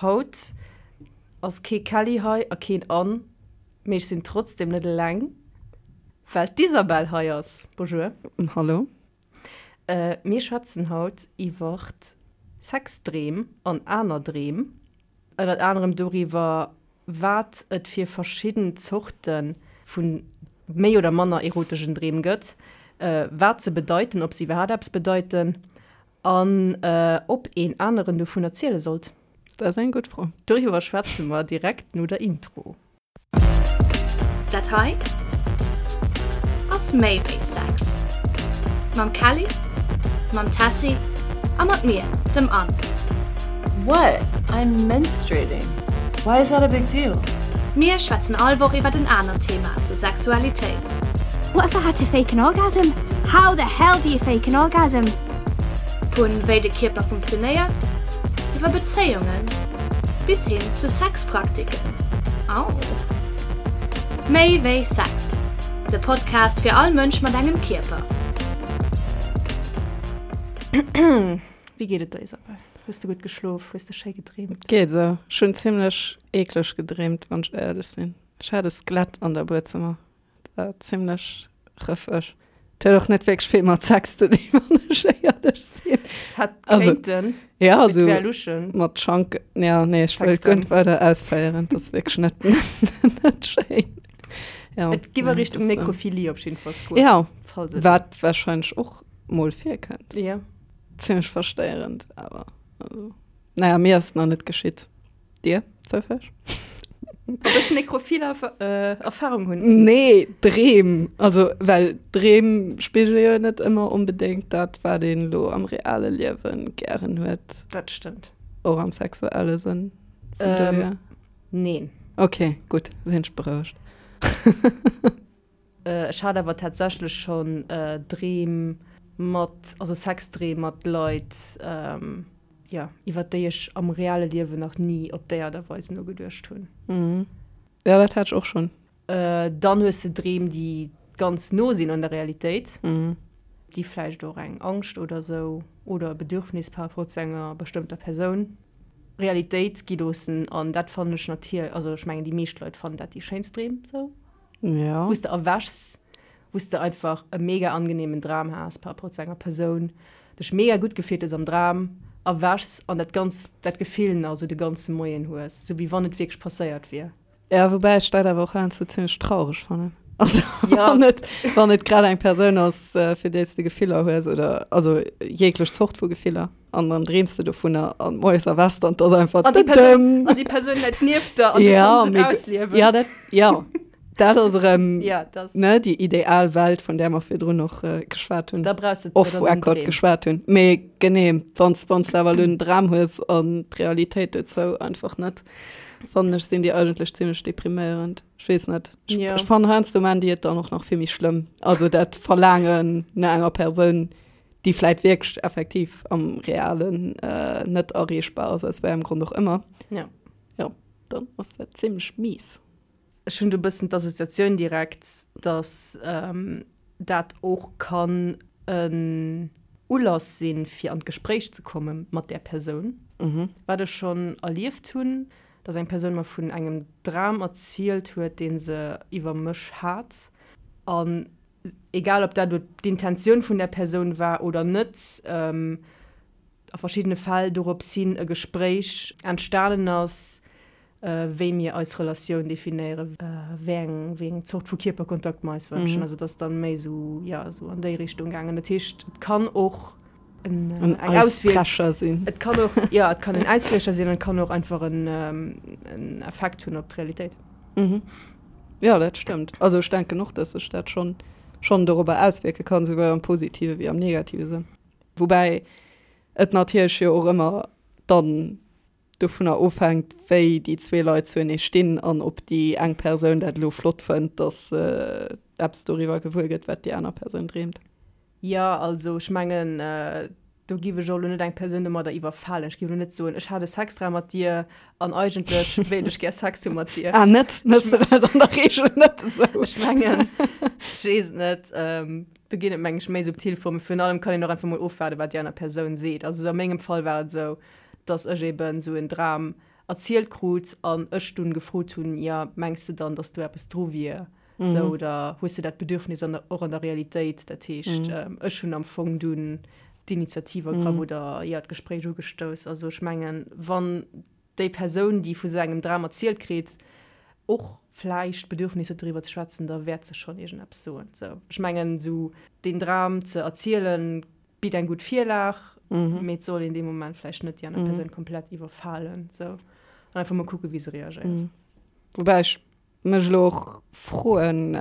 Haut ass kee Kelly hei a keen Anne, mee ech sinn trotzdem net eleng, well d'Isabelle hei ass. Bonjour. Hallo. Mir schwätzen haut iwwert Sexdreem an aner Dreem. Ënnert anerem doriwwer, wat et fir verschidden Zorte vu méi oder manner erotegen Dreem gëtt, wat se bedeiten, ob se iwwerhaapt eppes bedeiten an ob een aneren dovun erziele sollt. Dat ass eng gutt Fro. Doriwwer schwätze mer direkt no der Intro. Dat hei ass méi wéi Sex. Mam Kelly, mam Tessy a mat mir, dem Anne. What? I'm menstruating. Why is that a big deal? Mir schwätzen all Woch iwwert en anert Thema zur Sexualitéit. What if I had to fake an orgasm? How the hell do you fake an orgasm? Vun wéi de Kierper funktionéiert, iwwer Bezéiungen bis hin zu Sexpraktiken. Au! Méi wéi Sex, de Podcast fir all Mënsch mat engem Kierper. Wéi geet et der Isabelle? Hues de gutt geschlof? Hues de schéi gedreemt? Geet esou. Ech hunn zimlech eekleg gedreemt, wann ech éierlech sinn. Ech hat e Skelett an der Buedzëmmer. War zimlech rëffeg. Et huet och net wierklech vill mat Sex ze dinn, wann ech éierlech sinn. Hätt kéinten. Ja, also. Et wär luschen. Mat Schank, ja, nee, ech wëll guer net weider ausféieren. Dat ass wierklech net, net schéin. Ja. Et giff a Richtung Nekrophilie op jiddefalls goen. Ja, wat warscheinlech och mol virkënnt. Ja. Zimlech verstéierend, awer also, naja, mir ass et nach net geschitt. Dir zoufälleg? Ob ech nekrophil Erfahrung hunn? Nee, Dreem. Also, well Dreem spigele jo net ëmmer onbedéngt dat, wat een elo am reale Liewe gären huet. Dat stëmmt. Och am sexuelle Sënn. Vun dohier. Neen. Ok, gutt, sinn ech berouegt. Ech hat awer tatsächlech schonn Dreem mat, also Sexdreem mat Leit, jo, iwwer déi ech am reale Liewen nach ni op déi Aart a Weis nogeduecht hunn. Jo, dat hat ech och schonn. Dann hues de Dreem, déi ganz no sinn un der Realitéit, déi vläicht och eng Angscht oder esou oder e Bedürfnis par rapport zu enger bestëmmter Persoun Realitéit gi loossen. An dat fannen ech natierlech, also ech mengen déi meescht Leit fannen dat déi schéinst Dreem esou. Ja. Wou s de erwächs, wou s de einfach e mega angenehmen Dram has par rapport zu enger Persoun, dech mega gutt gefillt hues am Dram, erwächs an dat ganz, dat Gefill nach esou de ganze Moien hues, sou wéi wann et wierklech passéiert wier. Ja, woubäi ech dat awer och heiansdo zimmlech traureg fannen. Also ja. wann et, wann et grad eng Persoun ass, äh, fir déi s de Gefiller hues oder also jeglech Zort vu Gefiller an dann dreems de dovunner an moies erwächs de an 't ass einfach An déi Persoun, an déi Persoun läit nieft der an du ja, kanns et ausliewen. Ja, dat, ja. Dat ass erëm ja, das. ne, déi ideal Welt, vun där mer virdrun och äh, geschwat hunn. Da brauchst du Off Record geschwat hunn. Mee genee, wann s de awer elo en Dram hues an d'Realitéit dozou einfach net, fannen ech, sinn déi eigentlech zimmlech depriméierend. Ech weess net. Ech, Ja. ech fannen heiansdo maan déi et dann och nach vill méi schlëmm. Also dat Verlaangen no enger Persoun, déi vläit wierklech effektiv am Realen äh, net erreechbar ass, aus wéi engem Grond och ëmmer. Ja. Jo, dann ass dat zimmlech mies. Ech hunn do e bëssen d'Associatioun direkt, dass ähm, dat och kann en Ulass sinn, fir an d'Gespréich ze komme mat där Persoun. Wat ech schonn erlieft hunn, dass eng Persoun mer vun engem Dram erzielt huet, dee se iwwer mech hat. An egal ob dat elo d'Intentioun vun där Persoun war oder net, a verschiddene Fäll dorops hin e Gespréich entstanen ass, wéi mir eis Relatioun definéieren, wéi eng, wéi eng Zort vu Kierperkontakt mer eis wënschen. Also et ass dann méi esou, jo, esou an déi Richtung gaangen. Dat heescht, et kann och en, En eng Auswierk Äisbrecher sinn. Et kann och, jo, et kann en Äisbriecher sinn an et kann och einfach en, en Effekt hunn op d'Realitéit. Mhm. Jo, dat stëmmt. Also ech denken och, dass sech dat schonn, schonn dorobber auswierke kann, souwuel am positive wéi am negative Sënn. Woubäi et natierlech jo och ëmmer dann dovunner ofhänkt, wéi déi zwee Leit zuenee stinn an ob déi eng Persoun dat elo flott fënnt, dass se eppes doriwwer gewuer gëtt, wat déi aner Persoun dreemt. Jo, also ech mengen, do giff ech och elo net eng Persoun domadder iwwerfalen. Ech giff elo net soen, ech hat e Sexdram mat dir an eigentlech wéilt ech gär Sex hu mat dir. Ah net? Méchs de dat an der Reegel net esou? Ech mengen, ech weess et net. Do ginn et, meng ech, méi subtil Formen. Virun allem kann een och einfach mol ofwaarden, wat déi aner Persoun seet. Also a mengem Fall war et esou, dass ech eben esou en Dram. erzielt krut an ech dunn gefrot hunn, jo, mengs de dann, datt do eppes dru wier, sou, oder hues de dat Bedürfnis an der, och an der Realitéit? Dat heescht, ech hunn am Fong dunn d'Initiativ ergraff oder, jo, d'Gespréich ugestouss. Also ech mengen, wann déi Persoun, déi vu sou engem Dram erzielt kritt, och vläicht d'Bedürfnis huet doriwwer ze schwätzen, da wäert se schonn iergendeppes soen. Sou, ech mengen, sou deen Dram ze erzielen, bitt eng gutt Virlag, mee et soll een dee Moment vläicht net déi aner Persoun komplett iwwerfalen. Sou, an einfach mol kucken, wéi se reagéiert. Woubäi ech mech elo och froen,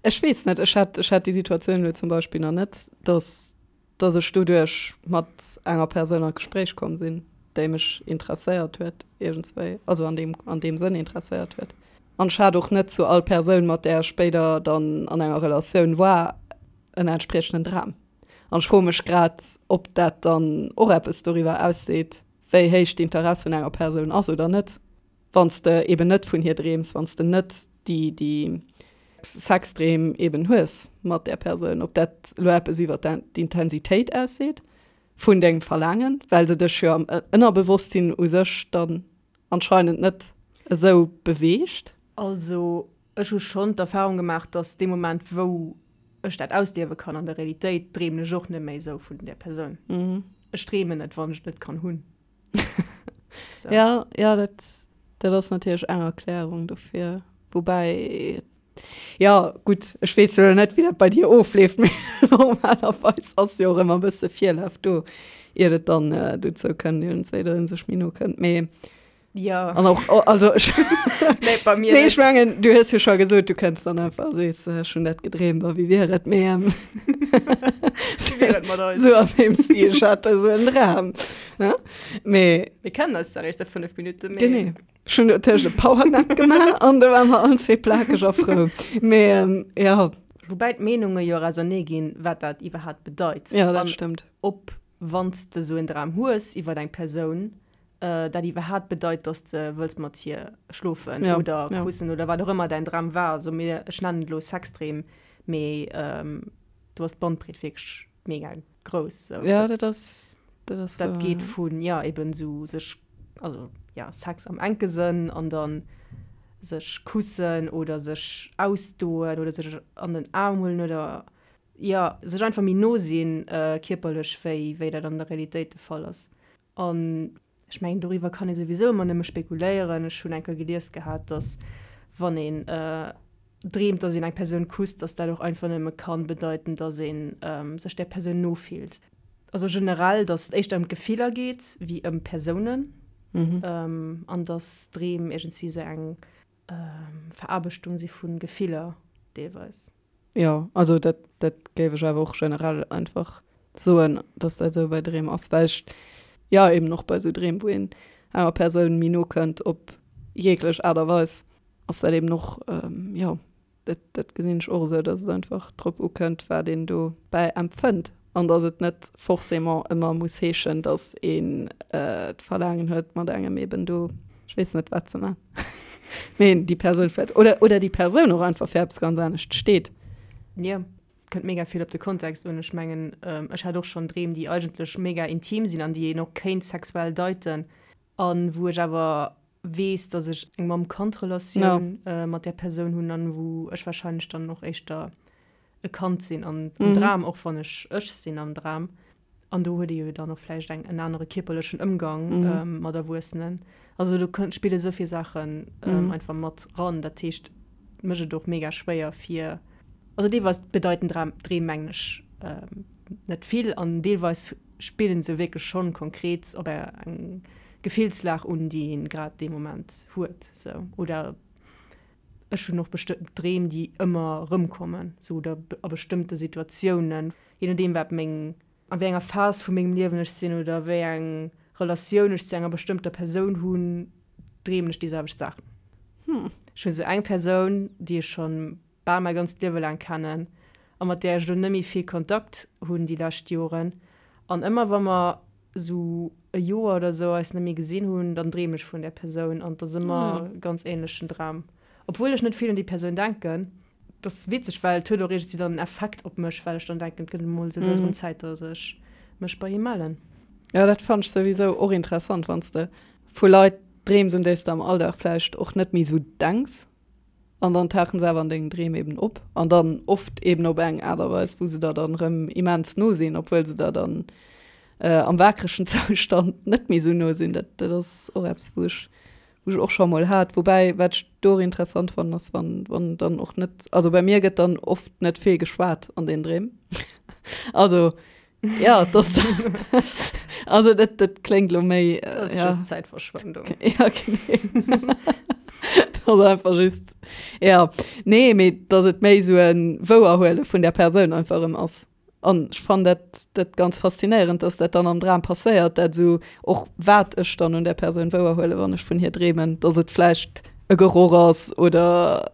ech weess net, ech hat, ech hat déi Situatioun elo zum Beispill nach net, dass dass ech doduerch mat enger Persoun an d'Gespréich komm sinn, déi mech interesséiert huet iergendswéi, also an deem, an deem Sënn interesséiert huet. An ech hat och net zu all Persoun, mat där ech spéider dann an enger Relatioun war, en entspriechenden Dram. An ech froe mech grad, ob dat dann och eppes doriwwer ausseet, wéi héich d'Interess un enger Persoun ass oder net. Wann s de eben net vun hir dreems, wann s de net déi, déi Sexdreem eben hues mat där Persoun, ob dat elo eppes iwwer d'Intensitéit ausseet vun dengem Verlaangen, well se dech jo am Ënnerbewosstsinn u sech dann anscheinend net esou beweegt. Also ech hu schonn d'Erfahrung gemaach, dass dee Moment wou ech dat ausliewe kann an der Realitéit, dreemen ech och net méi esou vun där Persoun. Ech dreemen net, wann ech et net kann hunn. So. Ja, ja, dat, dat ass natierlech eng Erklärung dofir. Woubäi, ja, gutt, ech weess jo net, wéi dat bei dir ofleeft, mee normalerweis ass jo och ëmmer e bësse Virlaf do, iert et dann äh, dozou kënnt, iergendswéi, datt ee sech méi no kënnt. Mee Ja. An och, oh, also ech, Nee, bei mir nee, ech net. mengen, du hues jo scho gesot, du kënns dann einfach a sees, ech hunn dat gedreemt a wéi wier et, mee ähm, Wéi wier et mat eis? Sou an deem Stil, ech hat esou en Dram. Ne? Mee Mir kennen eis zwar eréischt säit 5 Minutten, mee. Genee. Ech hunn dotëscht e Powernap gemaach an do ware mer allen zwee plakeg a frou. Mee ähm, ja. Woubäi d'Meenunge jo och ausernee ginn, wat dat iwwerhaapt bedeit. Ja, dat An stëmmt. ob, wann s de esou en Dram hues iwwer eng Persoun, dat iwwerhaapt bedeit, dass de wëlls mat hir schlofen ja, oder ja. kussen oder wat och ëmmer däin Dram war. Also mir, ech nennen et elo Sexdreem, mee ähm, do ass d'Bandbreet wierklech mega grouss. So, ja, dat ass, dat ass dat wahr, geet ja. vun ja eben sou sech, also ja Sex am enke Sënn an dann sech kussen oder sech ausdoen oder sech an den Aarm huelen oder ja sech einfach méi no sinn äh, kierperlech wéi wéi dat an der Realitéit de Fall ass. An ech mengen, doriwwer kann ee souwisou ëmmer nëmme spekuléieren. Ech hunn eng Kéier gelies gehat, datt wann een dreemt, datt een eng Persoun kusst, datt dat och einfach nëmme ka bedeiten, datt ee sech där Persoun no fillt. Also generell, datt et éischter ëm d'Gefiller geet wéi ëm Persounen an datt Dreem iergendswéi esou eng Veraarbechtung si vu Gefiller deelweis. Jo, also dat, dat géif ech awer och generell einfach soen, dass dat esou bei Dreem ass, well ech, jo, eben och bei esou Dreem, wou een enger Persoun méi no kënnt op jeeglech Aart a Weis, ass dat eben och, jo, dat, dat gesinn ech och esou, dass et einfach drop ukënnt, wat een dobäi empfënnt an dass et net forcément ëmmer muss heeschen, dass een d'Verlaangen huet, mat engem eben do, ech weess net, wat ze man. Mee déi Persoun vläicht, oder, oder déi Persoun och einfach fir eppes ganz anescht steet. Jo, kënnt mega vill op de Kontext un. Ech mengen, ech hat och schonn Dreem, déi eigentlech mega intim sinn an déi een och kéint sexuell deiten a wou ech awer weess, datt ech eng Mamm-Kand-Relatioun mat där Persoun hunn an wou ech warscheinlech dann och éischter e Kand sinn an am Dram, och wann ech ech sinn am Dram. An do huet ee jo dann och vläicht eng, en anere kierperlechen Ëmgang mat Erwuessenen. Also do kënnt, spille sou vill Saachen einfach mat ran. Dat heescht, et mécht et och mega schwéier fir, also deelweis bedeiten Dram, Dreem mengen ech net vill an deelweis spillen se wierklech schonn konkret op eng Gefillslag un, déi een grad dee Moment huet, sou. Oder Ech hunn och bestëmmt Dreem, déi ëmmer erëmkommen, sou oder a bestëmmte Situatiounen, je nodeem wat meng, a wéi enger Phas vu mengem Liewen ech sinn oder wéi eng Relatioun ech zu enger bestëmmter Persoun hunn, dreemen ech déi selwecht Saachen. Ech hunn esou eng Persoun, déi ech schonn bal mäi ganzt Liewe laang kennen a mat där ech elo net méi vill Kontakt hunn déi lescht Joren an ëmmer wa mer esou e Joer oder esou eis net méi gesinn hunn, dann dreem ech vun där Persoun an et ass ëmmer e ganz änlechen Dram. Obwuel ech net vill un déi Persoun denken. Et ass witzeg, well et huet och iergendwéi dann en Effekt op mech, well ech dann denken, et gëtt emol esou lues erëm Zäit, datt ech mech bei him mellen. Jo, dat fannen ech souwisou och interessant, wann s de vu Leit. Dreems, un déi s de am Alldag vläicht och net méi esou denks. An dann tauchen se awer an dengen Dreem eben op. An dann oft eben op eng Aart a Weis, wou se der dann erëm immens no sinn, obwuel se der dann am waakregen Zoustand net méi esou no sinn. Dat, dat ass och eppes, wou ech, wou ech och scho mol hat. Woubäi, wat ech do och interessant fannen, ass, wann, wann dann och net, also bei mir gëtt dann oft net vill geschwat an den Dreem. Also Ja, das also dat, dat kléngt lo méi. Äh, das ist ja. just Zäitverschwendung. Ja, genau. das ist einfach just. Ja, nee, mee dass et méi so en Wouerhuele vun der Persoun einfach erëm ass. An ech fannen dat, dat ganz faszinéierend, dass dat dann am Dram passéiert, dat esou och wat ech dann un der Persoun wouerhuele, wann ech vun hir dreemen, dass et vläicht e Geroch ass oder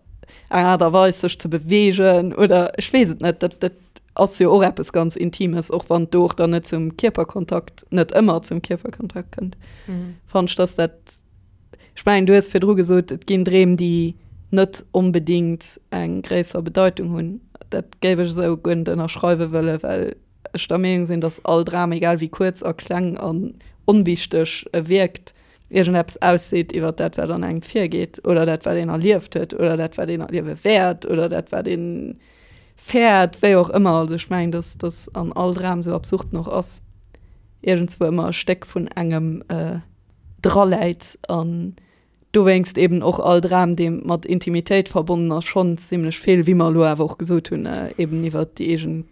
eng Aart a Weis sech ze beweegen oder ech weess et net. Dat, dat ass jo och eppes ganz Intimes, och wann et do och dann net zum Kierperkontakt, net ëmmer zum Kierperkontakt kënnt. Mhm. Fannen ech, dass dat, ech mengen, du hues virdru gesot, et ginn Dreem, déi net onbedingt eng gréisser Bedeitung hunn. Dat géif ech esou guer net ënnerschreiwe wëllen, well ech der Meenung sinn, dass all Dram, egal wéi kuerz a kleng an onwichteg e wierkt, iergendeppes ausseet iwwer dat, wat an engem virgeet oder dat, wat een erlieft huet oder dat, wat een erliewe wäert oder dat, wat een fäert, wéi och ëmmer. Also ech mengen, dass dass an all Dram, sou absurd en och ass, iergendswou ëmmer e Stéck vun engem draläit an dowéinst eben och all Dram, dee mat Intimitéit verbonnen ass, schonn zimlech vill, wéi mer elo awer och gesot hunn, eben iwwer déi eegen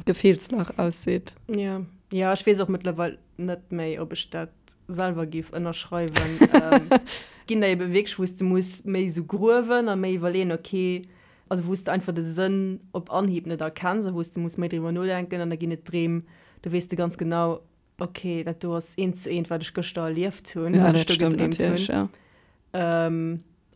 Gefillslag ausseet. Jo, jo, ech weess och mëttlerweil net méi, ob ech dat selwer géif ënnerschreiwen. Ginn der ebe wierklech, wou s de muss méi esou gruewen a méi iwwerleeën, okay, also wou s de einfach de Sënn op Anhieb net erkenns a wou s de muss méi driwwer nodenken an da ginn et Dreem, do weess de ganz genau, okay, dat do ass eent zu eent, wat ech gëschter erlieft hunn, Ja, wat ech dat do stëmmt gedreemt hunn. natierlech, ja.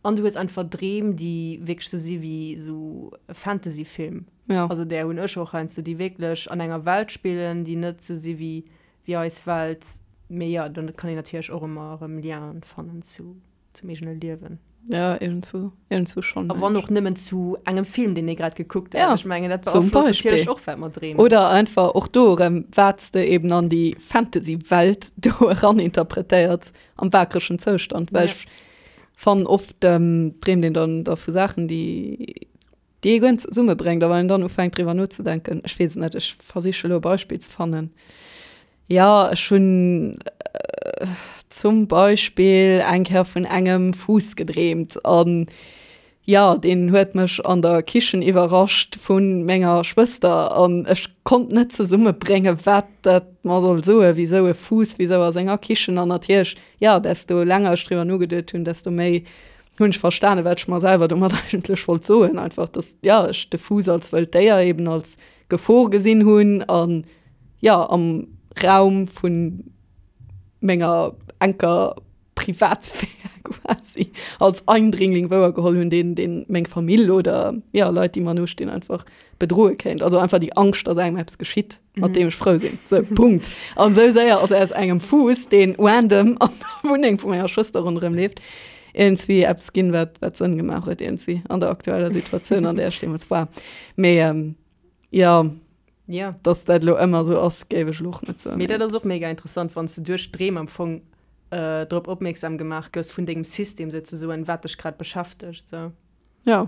An du hues einfach Dreem, déi wierklech sou si wéi sou e Fantasyfilm. Ja. Also där hunn ech och heiansdo, déi wierklech an enger Welt spillen, déi net sou si wéi wéi eis Welt. Mee jo, dann kann een natierlech och ëmmer erëm Lienen fannen zu zum eegene Liewen. Ja, iergendswou, iergendswou schonn. A wann och nëmmen zu engem Film, deen ee grad gekuckt huet. Ja, Ech mengen, dat zum beaflosst Beispill. natierlech och, wat mer dreemen. Oder einfach och do erëm, wat s de eben an déi Fantasy-Welt do eraninterpretéiers am waakregen Zoustand. Well Ja. ech fannen, oft dreemt een dann da vu Saachen, déi, déi ee guer net zesummebréngt. A wann een dann ufänkt driwwer nozedenken, ech weess et net, ech versiche elo e Beispill ze fannen. Jo, ech hunn zum Beispill eng Kéier vun engem Fuuss gedreemt an jo, deen huet mech an der Kichen iwwerrascht vu menger Schwëster an ech konnt net zesummebréngen, wat dat mer soll soen, wisou e Fuuss, wisou a senger Kichen an natierlech, jo, desto länger ech driwwer nogeduet hunn, desto méi hunn ech verstanen, wat ech mer selwer domat eigentlech wollt soen, einfach, dass, jo, ech de Fuuss als wëllt Déier eben als Gefor gesinn hunn an jo am Raum vun menger enker Privatsphär quasi als Eindringling wouergeholl hunn, deen deen meng Famill oder jo Leit déi mer no stinn einfach bedroe kéint. Also einfach déi Angscht, dass engem eppes geschitt, mat deem ech frou sinn. Sou, Punkt. An sou séier ass aus engem Fuuss, deen random an der Wunneng vu menger Schwëster ronderëm leeft, iergendswéi eppes ginn, wat wat Sënn gemaach huet iergendswéi an der aktueller Situatioun, an där ech deemools war. Mee jo, Ja. dass dat elo ëmmer esou ass, géif ech elo och net soen. Mee dat ass och mega interessant, wann s de duerch Dreem am Fong drop opmierksam gemaach gëss vun dengem System souzesoen, wat dech grad beschäftegt, sou. Ja.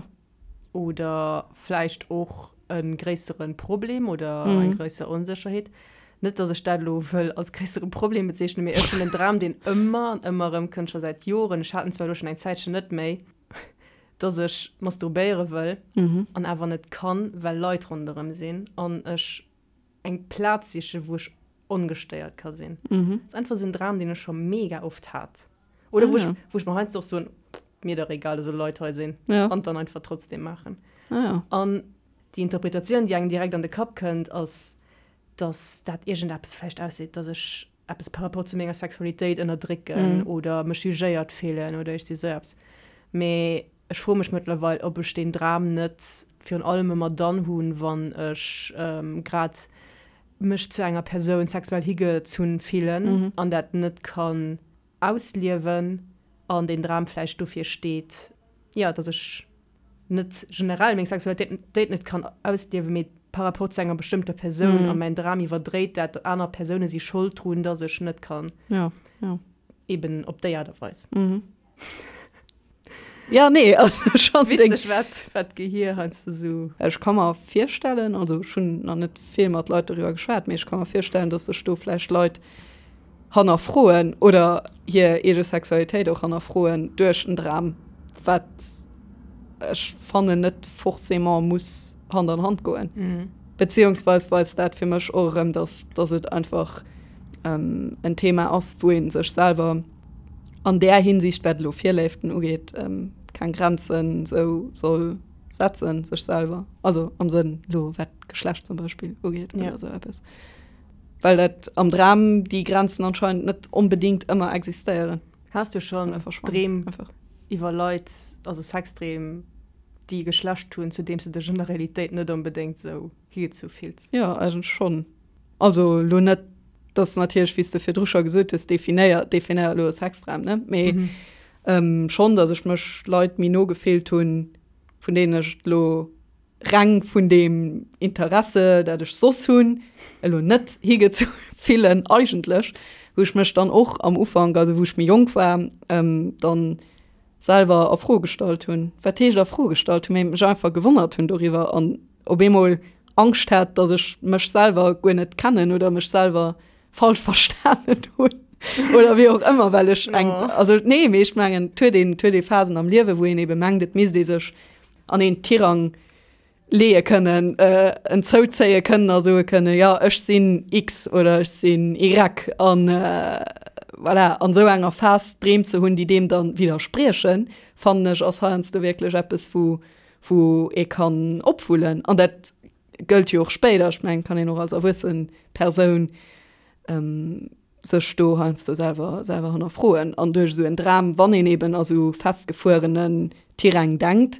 Oder vläicht och e gréissere Problem oder eng gréisser Onsécherheet. Net, dass ech dat elo wëll als gréissere Problem bezeechnen, mee ech hunn en Dram, deen ëmmer an ëmmer erëmkënnt, scho säit Joren, ech hat en zwar elo schonn eng Zäitchen net méi, dass ech masturbéiere wëll an awer net kann, well Leit ronderëm sinn an ech eng Plaz sichen, wou ech ongestéiert ka sinn. Dat ass einfach esou en Dram, deen ech scho mega oft hat. Oder wou ech, wou ech mer heiansdo och soen, mir dach egal, dass elo Leit hei sinn, an et dann einfach trotzdem maachen. An déi Interpretatioun, déi engem direkt an de Kapp kënnt, ass, dass dat iergendeppes vläicht ausseet, dass ech eppes par rapport zu menger Sexualitéit ënnerdrécken oder mech jugéiert fillen oder iergsi sou eppes. Mee ech froe mech mëttlerweil, ob ech deen Dram net virun allem ëmmer dann hunn, wann ech grad mech zu enger Persoun sexuell higezunn fillen an dat net kann ausliewen an deen Dram vläicht dofir steet, jo, dass ech net generell meng Sexualitéit net kann ausliewen, mee par rapport zu enger bestëmmter Persoun a mäin Dram iwwerdréit dat, aner Persoune si Schold drun, dass ech net kann. Ja, ja. Eben op déi Aart a Weis. Mhm. Ja, nee, also schon Witzeg, wat, wat d'Gehir heiansdo sou. Ech ka mer virstellen, also ech hunn nach net vill mat Leit doriwwer geschwat, mee ech ka mer virstellen, datt sech do vläicht Leit hannerfroen oder hir eege Sexualitéit och hannerfroen duerch en Dram, wat ech fannen net forcément muss Hand an Hand goen. Beziehungsweis weist dat fir mech och erëm, datt, datt et einfach en Thema ass, wou ee sech selwer an där Hinsicht, wat elo Virléiften ugeet, keng Grenzen esou soll setzen, sech selwer, also am Sënn elo wat Geschlecht zum Beispill ugeet oder esou eppes. Well dat am Dram déi Grenzen anscheinend net onbedéngt ëmmer existéieren. Has du schonn Dreem iwwer Leit, also Sexdreem, déi e Geschlecht hunn, zu deem s de dech an der Realitéit net onbedéngt esou higezu fills? Jo, eigentlech schonn. Also elo net, dass natierlech, wéi s de virdru scho gesot hues, definéier, definéier elo e Sexdram, ne? Mee schonn, dass ech mech Leit méi no gefillt hunn, vun deenen ech et elo reng vun deem Interesse, dat ech soss hunn, elo net higezu fillen eigentlech, wou ech mech dann och am Ufank, also wou ech méi jonk war, dann selwer a Fro gestallt hunn. Wat heescht a Fro gestallt hunn? Mee mech einfach gewonnert hunn doriwwer an op eemol Angscht hat, datt ech mech selwer guer net kennen oder mech selwer falsch verstanen hunn oder wéi och ëmmer, well ech eng, also nee, mee ech mengen, et huet een, et huet ee Phasen am Liewe wou een ebe mengt, et misst ee sech an een Tirang leeë kënnen, en zouzéie kënnen a soe kënnen, jo ech sinn X oder ech sinn Y an voilà, an esou enger Phas Dreem ze hunn, déi deem dann widderspriechen, fannen ech ass heiansdo wierklech eppes wou wou ee kann opwullen an dat gëllt jo och spéider, ech mengen kann een och als erwuessen Persoun sech do heiansdo selwer selwer hannerfroen an duerch esou en Dram, wann een eben a sou festgefuerenen Tiräng denkt,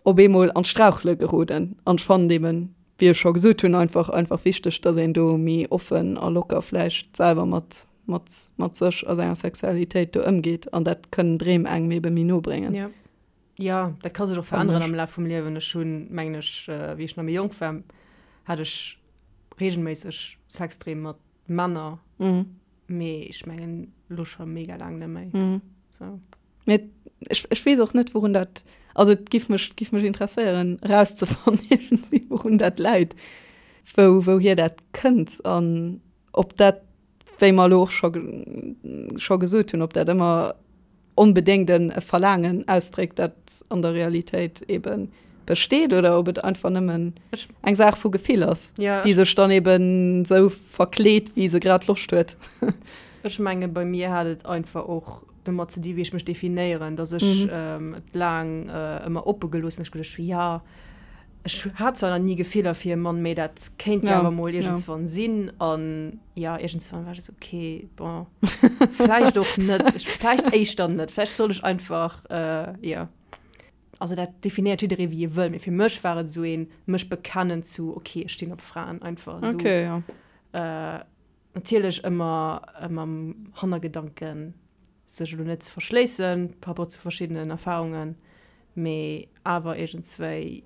op eemol an d'Strauchele geroden. An ech fannen eben, wéi ech scho gesot hunn, einfach einfach wichteg, datt een do méi offen a locker vläicht selwer mat mat mat sech a senger Sexualitéit do ëmgeet an dat kënnen Dreem engem ebe méi no bréngen. Jo. Jo, dat ka sech och veränneren am Laf vum Liewen. Ech hunn, mengen ech, wéi ech nach méi jonk war, hat ech reegelméisseg Sexdreem mat Männer, mee ech mengen elo scho mega laang net méi. Sou. Mee ech, ech weess och net, wourun dat, also et giff mech, giff mech interesséieren erauszefannen iergendwéi, wourun dat läit, wou, wouhier dat kënnt an ob dat, wéi mer elo och scho, scho gesot hunn, ob dat ëmmer onbedéngt e Verlaangen ausdréckt, dat an der Realitéit ebe besteet, oder ob et einfach nëmmen eng Saach vu Gefill ass, déi sech dann eben esou verkleet, wéi se grad Loscht huet. Ech menge bei mir hat et einfach och domat ze di wéi ech mech definéieren, datt ech et laang ëmmer oppe gelooss hunn. Ech geduecht hu jo, Ech hat zwar nach ni Gefiller fir e Mann, mee dat kéint jo awer mol iergendswann sinn. An jo, iergendswann war ech esou, okay, bon, vläicht och net, ech, vläicht éischter net, vläicht soll ech einfach, jo. Also dat definéiert jidderee wéi e wëll, mee fir mech war et esou een mech bekennen zu, okay, ech stinn op Fraen, einfach esou. Okay, jo. Natierlech ëmmer mam Hannergedanken, sech elo net ze verschléissen par rapport zu verschiddenen Erfahrungen, mee awer iergendswéi,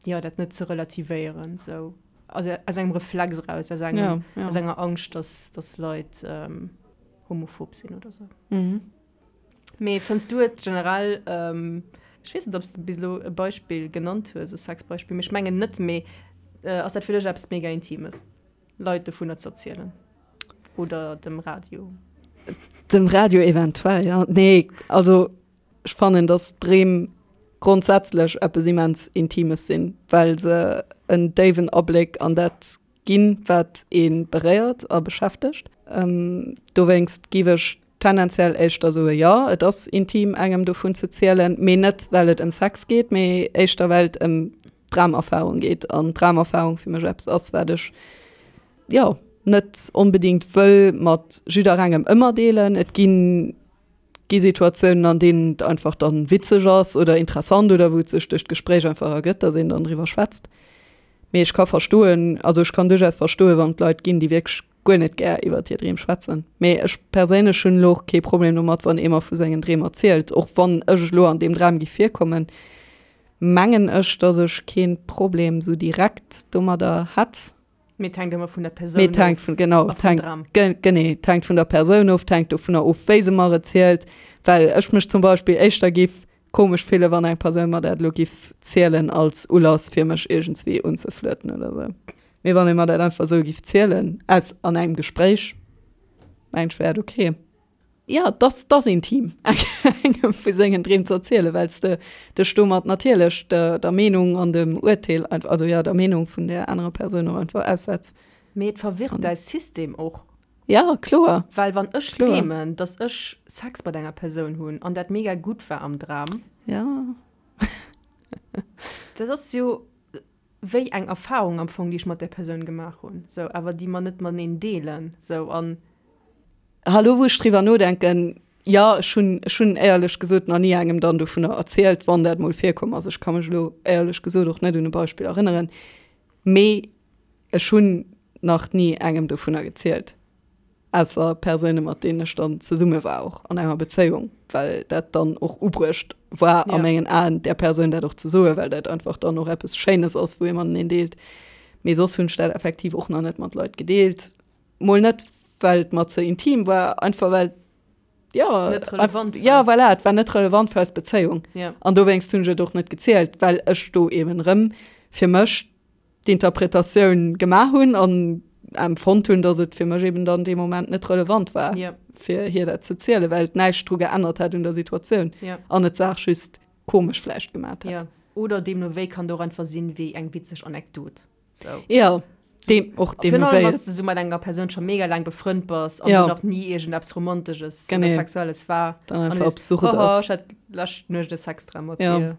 jo, dat net ze relativéieren, sou aus aus engem Reflex eraus, aus engem, ja, ja. aus enger Angscht, dass, dass Leit ähm, homophob sinn oder sou. Mhm. Mee fënns du et generell, ähm, ech weess net, ob s de bis elo e Beispill genannt hues, e Sexbeispill, mee ech mengen net, mee äh, ass dat fir dech eppes mega Intimes? Leit dovunner ze erzielen? Oder dem Radio? Dem Radio eventuell, ja. Nee, also ech fannen, dass Dreem grondsätzlech eppes immens Intimes sinn, well se en déiwen Abléck an dat ginn, wat ee beréiert a beschäftegt. Dowéinst giff ech tendenziell éischter soe jo, et ass intim engem dovun ze zielen, mee net well et ëm Sex geet, mee éischter well et ëm d'Dramerfarung geet an d'Dramerfarung fir mech eppes ass, wat ech jo net onbedingt wëll mat jidderengem ëmmer deelen. Et ginn gi Situatiounen, an deenen et einfach dann witzeg ass oder interessant oder wou et sech duerch d'Gespréich einfach ergëtt, dass een dann driwwer schwätzt. Mee ech ka verstoen, also ech kann duerchaus verstoen, wann et Leit ginn, déi wierklech guer net gär iwwert hir Dreem schwätzen. Mee ech perséinlech hunn elo och kee Problem domat, wann ee mer vu sengen Dreem erzielt. Och wann ech elo an deem Dram giff virkommen, mengen ech, dass ech kee Problem sou direkt domadder hätt. Mee et hänkt ëmmer vun der Persoun of. Mee et hänkt vun, genau, et hänkt, genee, et hänkt vun der Persoun of, et hänkt dovunner of, wéi se mer et zielt. Well ech mech zum Beispill éischter giff komesch fillen, wann eng Persoun mer dat elo giff zielen als Ulass, fir mech iergendswéi unzeflirten oder sou. Mee wann ee mer dat einfach esou giff zielen, aus, an engem Gespréich, mengen ech, wär et ok. Jo, et ass, et ass intim, engem vu sengen Dreem ze erzielen, well s de dech domat natierlech der, der Meenung an dem Urteel, also jo, der Meenung vun där anerer Persoun och einfach aussetz. Mee et verwirrt däi System och. Jo, kloer. Well wann ech dreemen, dass ech Sex mat enger Persoun hunn an dat mega gutt war am Dram. Jo. Dat ass jo wéi eng Erfahrung am Fong, déi ech mat där Persoun gemaach hunn, sou, awer déi mer net mateneen deelen, sou, an. Hallo, wou ech driwwer nodenken, jo, ech hunn, ech hunn éierlech gesot nach ni engem dann dovunner erzielt, wann dat mol virkomm ass. Ech ka mech elo éierlech gesot och net un e Beispill erënneren, mee ech hunn nach ni engem dovunner gezielt. Ausser Persoune mat deenen ech dann zesumme war, och an enger Bezéiung, well dat dann och ubruecht war a mengen Aen, där Persoun dat och ze soen, well dat einfach dann och eppes Schéines ass, wou ee mateneen deelt. Mee soss hunn ech dat effektiv och nach net mat Leit gedeelt. Mol net, well et mer ze intim war, einfach well, jo, Net relevant war. Jo, voilà, et war net relevant fir eis Bezéiung. An dowéinst hunn ech et och net gezielt, well ech do eben erëm fir mech d'Interpretatioun gemaach hunn an empfonnt hunn, datt et fir mech eben dann dee Moment net relevant war, yeah. fir hir dat ze zielen, well et näischt dru geännert hätt un der Situatioun yeah. an et d'Saach just komesch vläicht gemaat hätt. Yeah. Oder deemno wéi kann et och einfach sinn wéi eng witzeg Anekdot. So. Ja, deem, och deemno wéi. Wann s de sou mat enger Persoun scho mega laang befrënnt bass an ja. du nach ni iergendeppes Romantesches oder Sexuelles war. Dann einfach absurd ass. Ech hat lescht Nuecht e Sexdram mat ja. dir.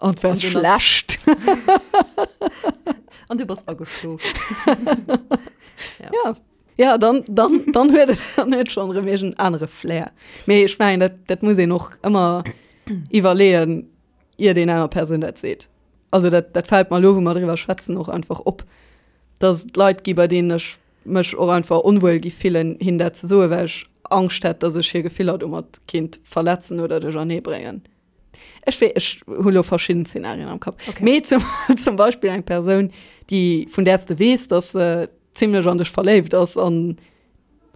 An et war schlecht. An du bass ageschlof. ja. ja. Ja, dann, dann, dann huet et dann huet schon erëm iergend anere Flair. Mee ech mengen, dat, dat muss een och ëmmer iwwerleeën, iert een enger Persoun dat seet. Also dat, dat fält mer elo, wou mer driwwer schwätzen, och einfach op, dass et Leit gi bei deenen ech mech och einfach onwuel gi fillen, hinnen dat ze soen, well ech Angscht hätt, dass ech hir Gefiller domat kinnt verletzen oder duerchernee bréngen. Ech wee, ech hu lo verschidden Szenarien am Kapp. Okay. Mee zum, zum Beispill eng Persoun, déi, vun där s de weess, dass se zimlech an dech verléift ass an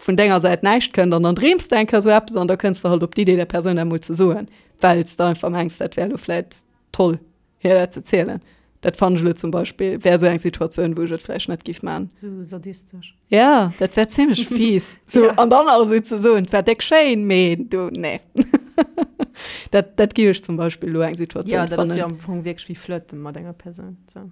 vun denger Säit näischt kënnt an dann dreems de eng Kéier sou eppes an da kënns de halt op d'Idee, der Persoun dat mol ze soen, well s de einfach mengs, dat wär lo vläit toll. Hir dat ze zielen. Dat fannen ech elo zum Beispill, wär esou eng Situatioun, wou ech et vläicht net giff man. Sou sadistesch. Ja, dat wär zimmlech fies. Sou, Ja. an dann nach esou ze soen, 't war déck schéin, mee du, nee. Dat, dat giff ech zum Beispill elo eng Situatioun Ja, dat ass jo fannen. am Fong wierklech wéi flirten mat enger Persoun, sou.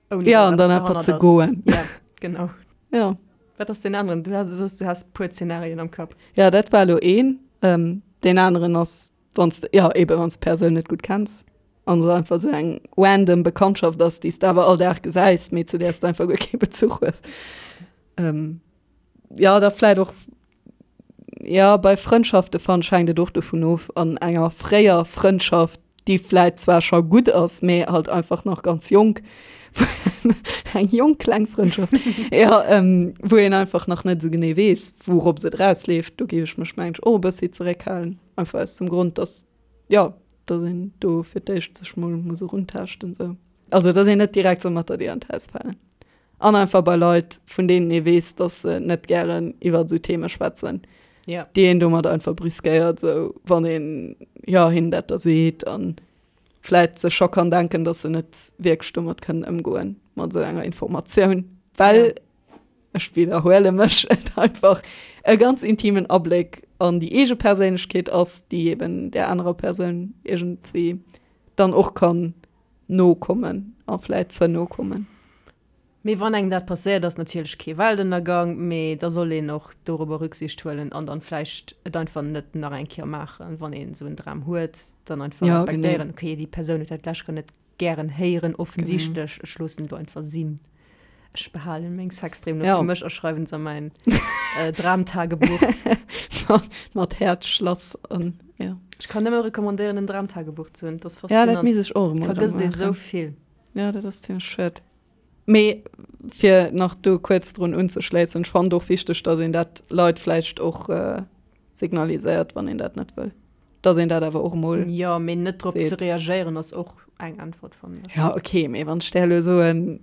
Ouni Ja, dass an dann eppes einfach derhannert ze ass. goen. Ja, genau. Ja. Wat ass deen aneren? Du has, du soos, du has puer Zenarien am Kapp. Ja, dat war elo een. Deen aneren ass Wann s de, jo eben, wann s d'Persoun net gutt kenns an et einfach esou eng random Bekanntschaft ass, déi s de awer all Dag gesäis, mee zu där s de einfach guer kee Bezuch hues. Jo, da vläit och, jo, bei Frëndschafte fannen ech hänkt et och dovun of, an enger fréier Frëndschaft, déi vläit zwar scho gutt ass, mee halt einfach nach ganz jonk, eng jonk kleng Frëndschaft, jo, wou een einfach nach net esou genee weess, wourops et erausleeft, do géif ech mech mengen ech och e bëssi zeréckhalen. Einfach aus dem Grond, dass, jo, dass een do fir d'éischt sech mol muss eruntaaschten sou. Also dass een net direkt soll mat der Dier an d'Haus falen. An einfach bei Leit, vun deenen ee weess, dass se net gären iwwer esou Theme schwätzen, Ja. déi een domat einfach brüskéiert, sou wann een, jo, hinnen dat da seet an vläit sech scho kann denken, dass se net wierklech domat kënnen ëmgoen, mat esou enger Informatioun, well Ja. ech widderhuele mech, et einfach e ganz intimen Abléck an déi eege Perséinlechkeet ass, déi eben där anerer Persoun iergendwéi dann och kann no kommen a vläit ze no kommen. Mee wann engem dat passéiert, ass natierlech kee Weltënnergang, mee da soll een och dorobber Rücksicht huelen an dann vläicht et einfach net nach eng Kéier maachen, wann een esou en Dram huet, dann einfach Ja, respektéieren, genee. okay, déi Persoun huet dat d'lescht Kéier net gären héieren, offensichtlech, ech loossen et elo einfach sinn. Ech behalen meng Sexdreem nur Ja. fir mech a schreiwen se a mäin äh, Dramtagebuch. Mat Häerzschlass an ja. Ech kann nëmme recommandéieren, en Dramtagebuch ze hunn. Dat ass Ja, dat faszinant. misst ech och emol erëm Vergësst ee sou maachen. vill. Ja, dat ass zimmlech schued. Mee fir nach do kuerz drun unzeschléissen, ech fannen et och wichteg, datt een dat Leit vläicht och äh, signaliséiert, wann een dat net wëll. Datt een dat awer och emol Jo, mee net drop seet. ze reagéieren ass och eng Äntwert, fannen ech. Ja, okay, mee wann ech där elo soen.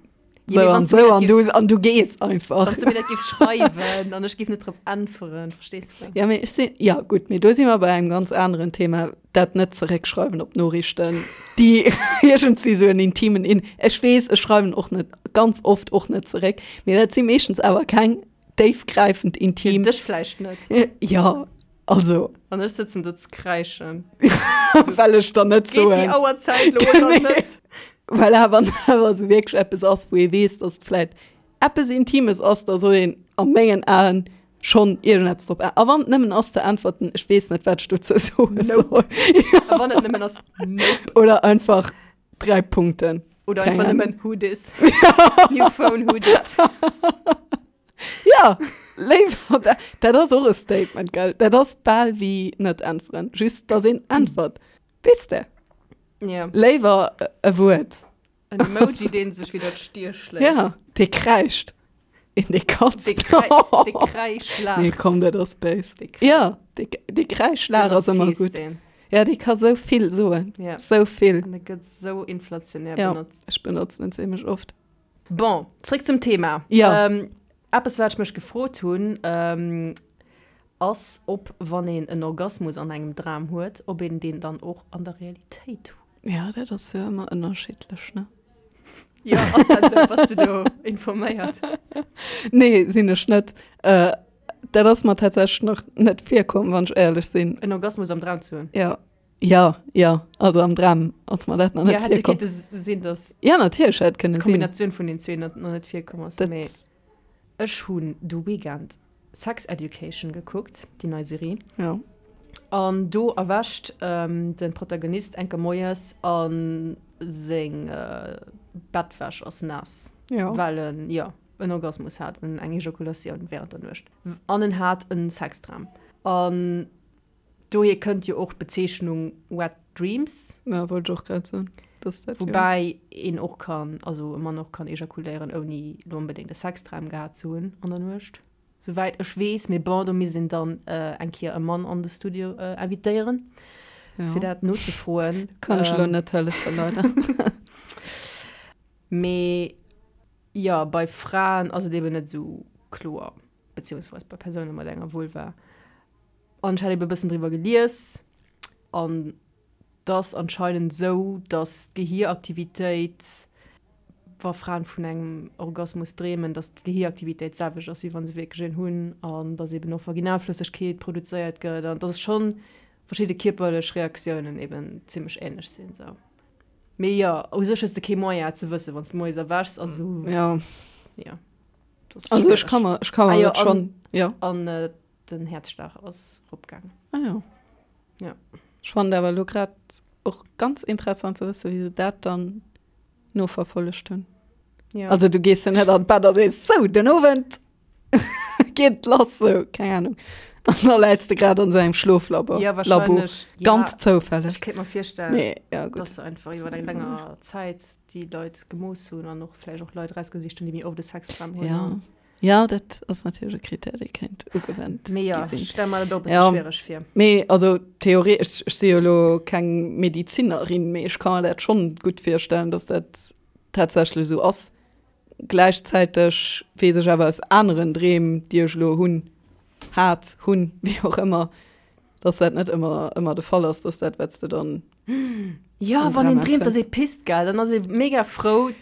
Sou an sou an du an du gees einfach. Wann s du mir dat géifs schreiwen an ech géif net drop äntweren, verstees de? Ja, mee ech sinn, ja gutt, mee do si mer bei engem ganz aneren Thema, dat net zeréckschreiwen op Noriichten, déi iergendwéi sou en intimen In. Ech weess, ech schreiwen och net, ganz oft och net zeréck, mee dat si meeschtens awer keng déifgräifend intim. Fir dech vläicht net. Ja, also. An ech sëtzen do ze kräischen. Well ech der net soen. Geet déi Auerzäit lo oder net? Well awer awer esou wierklech eppes ass, wou ee weess, dass et vläit eppes Intimes ass, da soll een a mengen Aen schonn iergendeppes drop ä-. A wann et nëmmen ass ze äntwerten, ech weess net, wat ech dozou soe soll. A wann et nëmmen ass, nope. Oder einfach 3 Punkten. Oder einfach nëmmen, who dis? New phone, who dis? Ja, léiwer dat. Dat ass och e Statement, gell? Dat ass bal wéi net äntweren, just dass een äntwert. Weess de? Ja. Léiwer e Wuert. En Emoji, deen sech widder d'Stier schléit. Ja, dee kräischt. Een, dee katzt. Dee kräi, dee kräisch laacht. Nee, komm, dat ass béis. Ja, dee, dee Kräischlaach ass ëmmer gutt. Ja, dee ka sou vill soen. Ja. Sou vill. An e gëtt sou inflationär benotzt. Ja, ech benotzen en zimmlech oft. Bon, zréck zum Thema. Ja. Ähm, eppes, wat ech mech gefrot hunn, ähm, ass, ob wann een en Orgasmus an engem Dram huet, ob een deen dann och an der Realitéit huet. Ja, dat ass jo ëmmer ënnerschiddlech, ne? Jo, ass dat esou? Bass de do informéiert? Nee, sinn ech net. Äh, dat ass mer tatsächlech nach net virkomm, wann ech éierlech sinn. En Orgasmus am Dram ze hunn? Ja. Ja, ja, also am Dram ass mer dat nach net Ja, hätt jo virkomm. kéinte sinn, dass Ja, natierlech hätt kënne sinn. d'Kombinatioun vun den zwee nach net virkomm ass. Dat. Mee ech hunn de Weekend Sex Education gekuckt, déi nei Serie. Ja. An do erwächt de Protagonist enker moies a seng Bettwäsch ass naass, Ja. well en, jo, en Orgasmus hat, eng Ejakulatioun wärend der Nuecht. An en hat en Sexdram. An Dohier kënnt jo och d'Bezeechnung Wet Dreams. Ja, wollt ech och grad soen, dass dat jo. Woubäi een och kann, also e Mann och kann ejakuléieren, ouni lo onbedéngt e Sexdram gehat ze hunn an der Nuecht, souwäit ech weess. Mee bon, do misst een dann eng Kéier e Mann an de Studio invitéieren, fir dat nozefroen. Kann ech elo net hëllefen, leider. Mee jo, bei Fraen ass et eben net esou kloer, beziehungsweis bei Persoune mat enger Vulva. An ech hat eben e bëssen driwwer gelies an et ass anscheinend esou, dass d'Gehieraktivitéit, wa Fraen vun engem Orgasmus dreemen, dass d'Gehieraktivitéit d'selwecht ass, wéi wa se wierklech een hunn an dass eben och Vaginalflëssegkeet produzéiert gëtt an dass schonn verschidde kierperlech Reaktiounen eben zimmlech änlech sinn. Sou. Mee jo, u sech hues de kee Moyen et ze wëssen, wann s de moies erwächs. Also Ja. jo, dat ass Also ech schwiereg. ka mer, ech ka Ah mer jo, dat schonn, an, jo. an Den Häerzschlag ass ropgaangen. Ah jo. Ja. Ech fannen awer elo grad och ganz interessant ze wëssen, wéi se dat dann noverfollegt hunn. Ja. Also du gees jo net an d'Bett a sees, sou, den Owend geet lass, sou, keng Ahnung. An da läits de grad an esou engem Schloflabo. Ja, wahrscheinlech. Ja, Ganz zoufälleg. Ech kéint mer virstellen, Nee, ja, gutt. dass se einfach iwwer eng länger Zäit déi Leit gemooss hunn an och vläicht och Leit erausgesicht hunn, déi méi oft e Sexdram hunn. Ja. Ja, dat ass natierlech e Krittär, dee kéint ugewent Mee ja, gi sinn. ech stelle mer dat och e bësse Ja. schwiereg vir. Mee also theoretesch, ech si jo elo keng Medizinerin, mee ech ka mer dat schonn gutt virstellen, datt dat tatsächlech esou ass. Gläichzäiteg weess ech awer aus aneren Dreem, déi ech elo hunn, hat, hunn, wéi och ëmmer, datt dat net ëmmer ëmmer de Fall ass, datt dat, wat s de dann Ja, am wann een Dram dreemt, datt empfënns. ee pisst, gell, dann ass ee mega frou.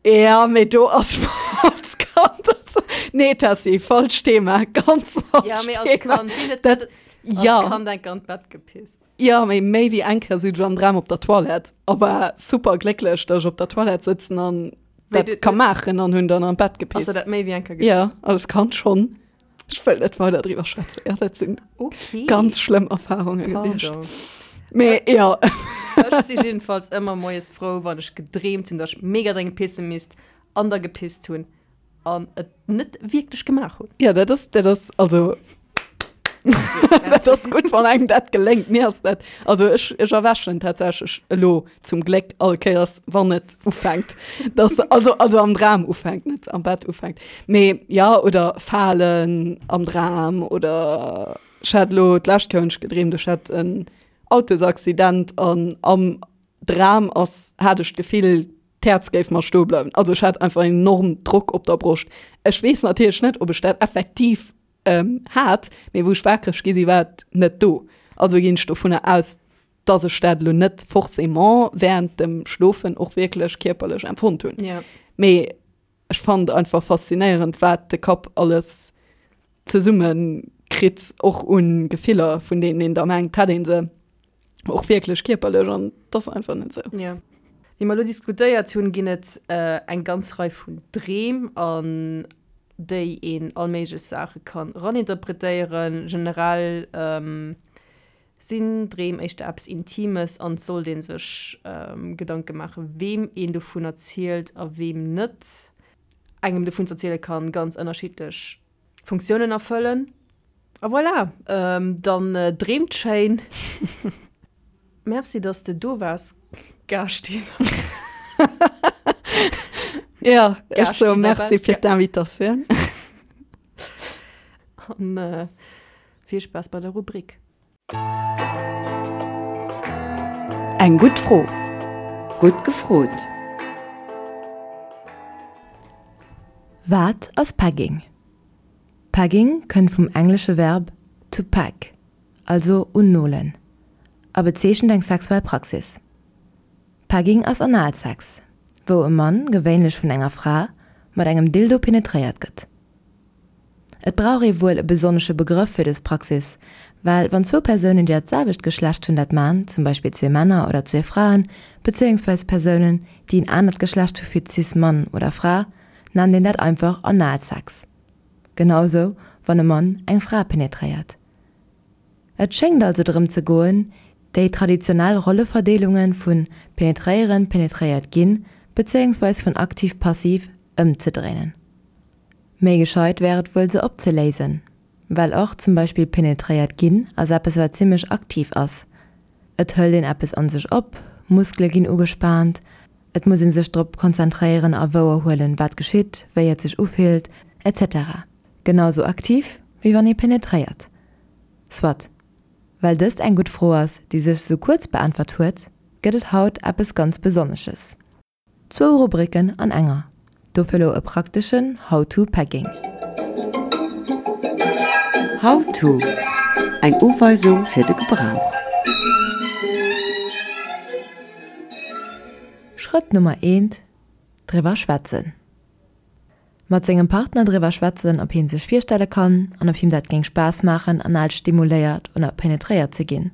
Ja, mee do ass mer als Kand, also, nee Tessy, falscht Thema, ganz falscht Ja, mee als Thema. Kand, wien huet Dat, net als ja. Kand enker an d'Bett gepisst? Ja, mee méi wéi eng Kéier sinn ech am Dram op der Toilette a war super glécklech, datt ech op der Toilette sëtzen an Wéi dat du, ka maachen an hunn dann an d'Bett ass der gepisst. dat méi wéi eng Kéier geschitt? Ja, als Kand schonn. Ech wëll net weider driwwer schwätzen. Ja, dat sinn Okay. ganz schlëmm Erfarunge gewiescht. Pardon. Mee ja. Ech si jiddefalls ëmmer moies frou, wann ech gedreemt hunn, datt ech mega dréngend pisse misst an da gepisst hunn an et net wierklech gemaach hunn. Ja, dat ass, dat ass, also dat ass gutt, wann engem dat geléngt. Mir ass dat, also ech, ech erwächen tatsächlech elo zum Gléck all Kéiers, wann et ufänkt, dass, also, also am Dram ufänkt, net am Bett ufänkt. Mee ja, oder falen am Dram oder ech hat elo d'lescht Kéier hunn ech gedreemt, ech hätt en Autosaccident an am Dram ass, hat ech d'Gefill. D'Häerz géif mer stoe bleiwen. Also ech hat einfach enorm Drock op der Broscht. Ech weess natierlech net, ob ech dat effektiv hat, mee wou ech wakereg gi si war et net do. Also ginn ech dovunner aus, dass ech dat elo net forcément während dem Schlofen och wierklech kierperlech empfonnt hunn. Ja. Mee ech fand einfach faszinéierend, wat de Kapp alles zesumme kritt, och un Gefiller, vun deenen een da mengt, hätt ee se och wierklech kierperlech an et ass einfach net esou. Ja. Wéi mer elo diskutéiert hunn, ginn et eng ganz Rei vun Dreem, an déi een all méiglech Saache kann eraninterpretéieren. Generell sinn Dreem éischter eppes Intimes an et sollt ee sech Gedanke maachen, weem een dovun erzielt a weem net. Engem dovun z'erziele kann ganz ënnerschiddlech Funktiounen erfëllen. A voilà, dann dreemt schéin. Merci, dass de do waars, Gast Isabel. Jo, ech soe Merci fir d'Invitatioun. An vill Spaass bei der Rubrik. Eng gutt Fro. Gutt gefrot. Wat ass Pegging? Pegging kënnt vum englesche Verb to peg, also unnolen, a bezeechent eng sexuell Praxis. Pegging ass Analsex, wou e Mann, gewéinlech vun enger Fra, mat engem Dildo penetréiert gëtt. Et brauch ee wuel e besonnesche Begrëff fir dës Praxis, well wann zwou Persounen, déi dat selwecht Geschlecht hunn, dat man, zum Beispill zwee Männer oder zwee Fraen, bezéiungsweis Persounen, déi en anert Geschlecht hu fir cis Mann oder Fra, nennt een dat einfach Analsex. Genau sou wann e Mann eng Fra penetréiert. Et schéngt also drëm ze goen, déi traditionell Rolleverdeelunge vu penetréieren, penetréiert ginn, bezéiungsweis vun aktiv-passiv ëmzedréinen. Méi gescheit wär et wuel se opzeléisen, well och zum Beispill penetréiert ginn ass eppes wat zimmlech aktiv ass. Et hëlt een eppes an sech op, Muskele ginn ugespaant, et muss een sech drop konzentréieren a wouer huelen wat geschitt, wéi et sech ufillt, etc. Genau sou aktiv wéi wann ee penetréiert. Soit. Well dëst eng gutt Fro ass déi sech sou kuerz beäntwert huet, gëtt et haut eppes ganz Besonnesches. Zwou Rubriken an enger, dofir lo e prakteschen How to Pegging. How to, Eng Uweisung fir de Gebrauch. Schrëtt Nummer eent, Driwwer schwätzen. Mat sengem Partner driwwer schwätzen, ob hien sech virstelle kann an ob him dat géing Spaass maachen anal stimuléiert oder penetréiert ze ginn.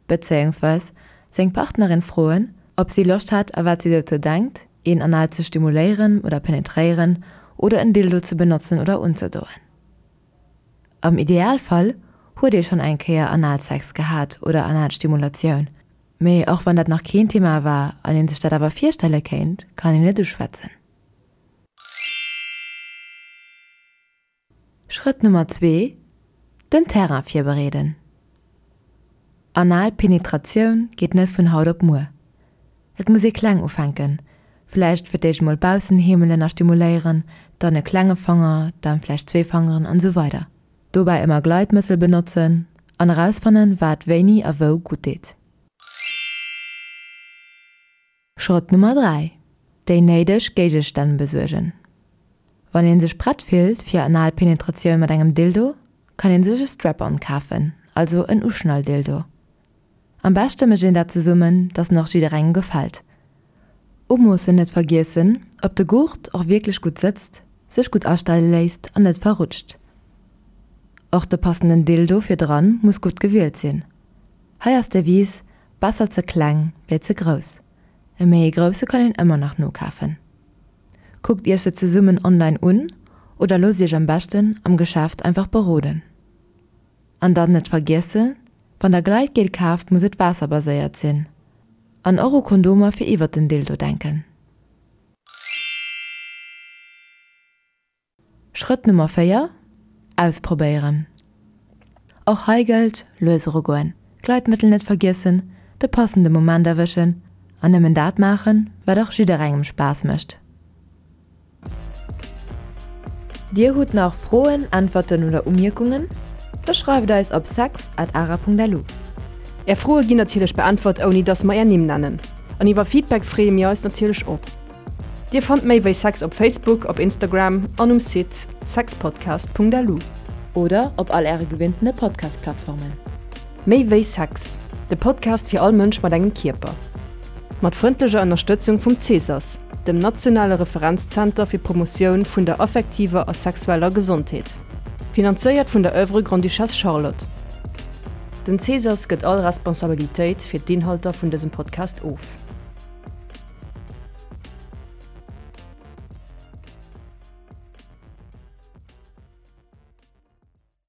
Bezéiungsweis seng Partnerin froen, ob si Loscht hätt a wat si dozou denkt, een anal ze stimuléieren oder penetréieren oder en Dildo ze benotzen oder unzedoen. Am Idealfall huet ee schonn eng Kéier Analsex gehat oder Analstimulatioun, mee och wann dat nach keen Thema war an een sech dat awer virstelle kéint, kann een et uschwätzen. Schrëtt Nummer zwee, Den Terrain virbereeden. Anal Penetratioun geet net vun haut op muer. Et muss ee kleng ufänken, vläicht fir d'éischt mol baussen heemelen a stimuléieren, dann e klenge Fanger, dann vläicht zwee Fangeren an esou weider. Dobäi ëmmer Gleitmëttel benotzen an erausfannen, wat wéini a wou gutt deet. Schrëtt Nummer 3, Déi néideg Géigestänn besuergen. Wann een sech prett fillt fir anal Penetratioun mat engem Dildo, kann een sech e Strap-on kafen, also en Uschnalldildo. Am beschte mécht een dat zesummen, dass en och jidderengem gefält. Umoossen net vergiessen, ob de Gurt och wierklech gutt sëtzt, sech gutt astelle léisst an net verrutscht. Och de passenden Dildo fir dran muss gutt gewielt sinn. Hei ass d'Devise, Besser ze kleng wéi ze grouss. E méi e grousse kann een ëmmer nach nokafen. Kuckt iech se zesummen online un oder loosst iech am beschten am Geschäft einfach beroden. An dann net vergiessen, wann der Gleitgel kaaft muss et waasserbaséiert sinn. An och u Kondomer fir iwwert den Dildo denken. Schrëtt Nummer 4, Ausprobéieren. Och hei gëllt, lues erugoen, Gleitmëttel net vergiessen, de passende Moment erwëschen an nëmmen dat maachen, wat och jidderengem Spaass mécht. Dir hutt nach Froen, Äntwerten oder Umierkungen? Da schreift eis op sex at ara.lu. Är Froe ginn natierlech beäntwert, ouni dass mer är Nimm nennen. An iwwer Feedback freeë mir eis natierlech och. Dir fannt méi wéi Sex op Facebook, op Instagram an um Site sexpodcast.lu. Oder op all äre gewinntene Podcast-Plattformen. Méi wéi Sex, de Podcast fir all Mënsch mat engem Kierper. Mat frëndlecher Ënnerstëtzung vum CSAS, dem nationale Referenzzenter fir d'Promotioun vun der affektiver a sexueller Gesondheet. Finanzéiert vun der Oeuvre Grande-Duchesse Charlotte. Den CSAS gëtt all Responsabilitéit fir d'Inhalter vun dësem Podcast of.